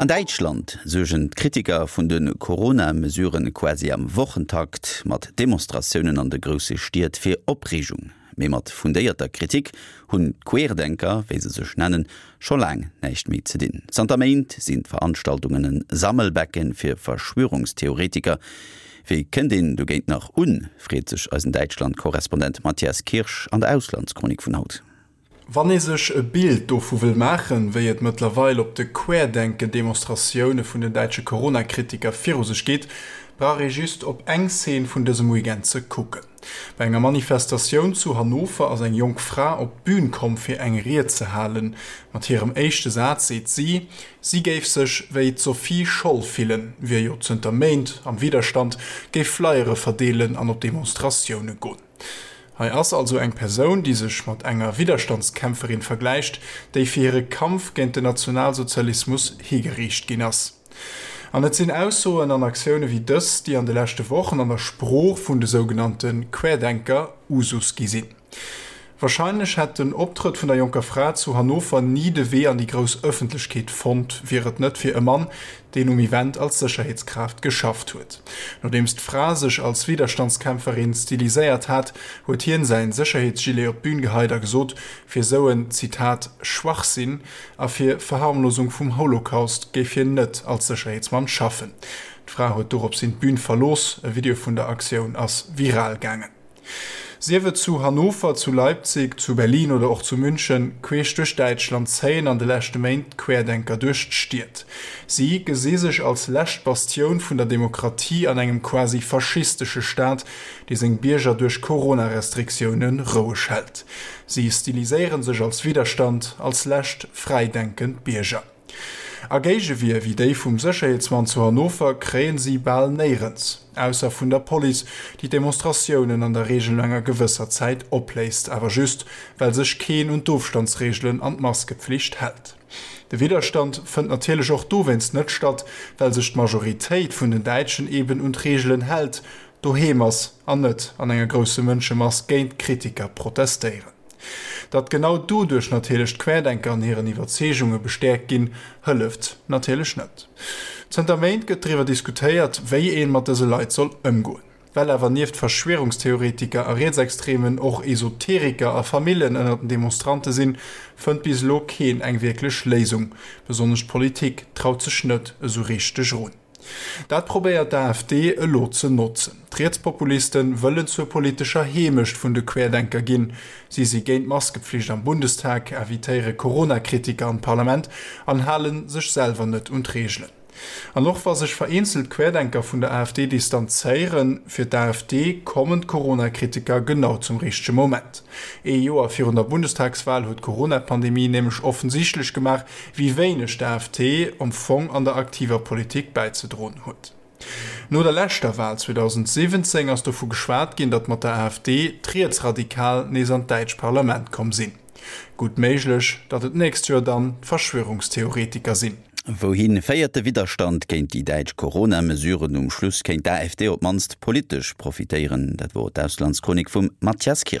An Däitschland suergen d'Kritiker vun de Corona-Mesuren quasi am Wochentakt mat Demonstratiounen an de grousse Stied fir Opreegung. Mee mat fundéierter Kritik hunn d'Querdenker, wéi se sech nennen, scho laang näischt méi ze dinn. Zanter Méint sinn d'Veranstaltungen en Sammelbecken fir Verschwörungstheoretiker. Wéi kënnt een dogéint nach un, freet sech eisen Däitschland-Korrespondent Matthias Kirsch an der Auslandschronik vun haut. Wann ee sech e Bild dovu wëll maachen, wéi et mëttlerweil op de Querdenken-Demonstratioune vun den däitsche Corona-Kritiker viru sech geet, brauch ee just op eng Szene vun dësem Weekend ze kucken. Bei enger Manifestatioun zu Hannover ass eng jonk Fra op d'Bün komm fir eng Ried ze halen. Mat hirem éischte Saz seet si, si géif sech wéi d'Sophie Scholl fillen, wier jo zënter Méint am Widderstand, géif Flyere verdeelen an op Demonstratioune goen. Hei ass also eng Persoun, déi sech mat enger Widderstandskämpferin vergläicht, déi fir hire Kampf géint den Nationalsozialismus higeriicht ginn ass. An et sinn Aussoen an Aktioune wéi dës, déi an de leschte Wochen an der Sprooch vun de sougenannte Querdenker Usus gi sinn. Warscheinlech hätt den Optrëtt vun der jonker Fra zu Hannover ni de Wee an déi grouss Ëffentlechkeet fonnt, wier et net fir e Mann, deen um Event als Sécherheetskraaft geschafft huet. Nodeems d'Fra sech als Widerstandskämpferin stiliséiert hat, huet hien säin Sécherheetsgilet op d'Bün geheit a gesot, fir sou en, Zitat, Schwachsinn a fir Verharmlosung vum Holocaust géif hien net als Sécherheetsmann schaffen. D'Fra huet doropshin d'Bün verlooss. E Video vun der Aktioun ass viral gaangen. Sief et zu Hannover, zu Leipzig, zu Berlin oder och zu München, queesch duerch Däitschland zéien an de leschte Méint d'Querdenker duerch d'Stied. Si gesi sech als lescht Bastioun vun der Demokratie an engem quasi faschistesche Staat, dee seng Bierger duerch Corona-Restriktioune roueg hält. Si stiliséiere sech als Widderstand, als lescht fräidenkend Bierger. A Géigewier wéi déi vum Sécherheetsmann zu Hannover kréien si bal néierens, ausser vun der Police, déi d'Demonstratiounen an der Reegel no enger gewësser Zäit opléist, awer just, well sech keen un d'Ofstandsreegelen an d'Maskepflicht hält. De Widderstand fënnt natierlech och dowéinst net statt, well sech d'Majoritéit vun den Däitschen eben un d'Reegelen hält, doheem ass an net an enger grousse Mënschemass géint d'Kritiker protestéieren. Datt genau doduerch natierlech d'Querdenker an hiren Iwwerzeegunge bestäerkt ginn, hëlleft natierlech net. Zënter Méint gëtt driwwer diskutéiert, wéi een mat dëse Leit soll ëmgoen. Well awer nieft Verschwierungstheoretiker a Rietsextremen och Esoteriker a Famillen ënner den Demonstrante sinn, fënnt bis elo keen eng wierklech Léisung. Besonnesch d'Politik traut sech net esou richteg erun. Dat probéiert d'AfD elo ze notzen. D'Rietspopuliste wëllen zur politescher Heemecht vun de Querdenker ginn. Si si géint d'Maskepflicht am Bundestag, invitéiere Corona-Kritiker an d'Parlament an hale sech selwer net un d'Reegelen. An och wa sech vereenzelt Querdenker vun der AfD distanzéieren, fir d'AfD kommen d'Corona-Kritiker genau zum richtege Moment. Ee Joer virun der Bundestagswal huet d'Corona-Pandemie nämlech offensichtlech gemaach, wéi wéineg d'AfD am Fong an der aktiver Politik bäizedroen huet. No der leschter Wal 2017 ass dovu geschwat ginn, datt mat der AfD d'Rietsradikal nees an d'däitsch Parlament komm sinn. Gutt méiglech, datt et d'nächst Joer dann d'Verschwörungstheoretiker sinn. Wouhi féiert de Widderstand géint déi däitsch Corona-Mesuren? Um Schluss kéint d'AfD op d'mannst politesch profitéieren. Dat wor d'Auslandschronik vum Mathias Kirsch.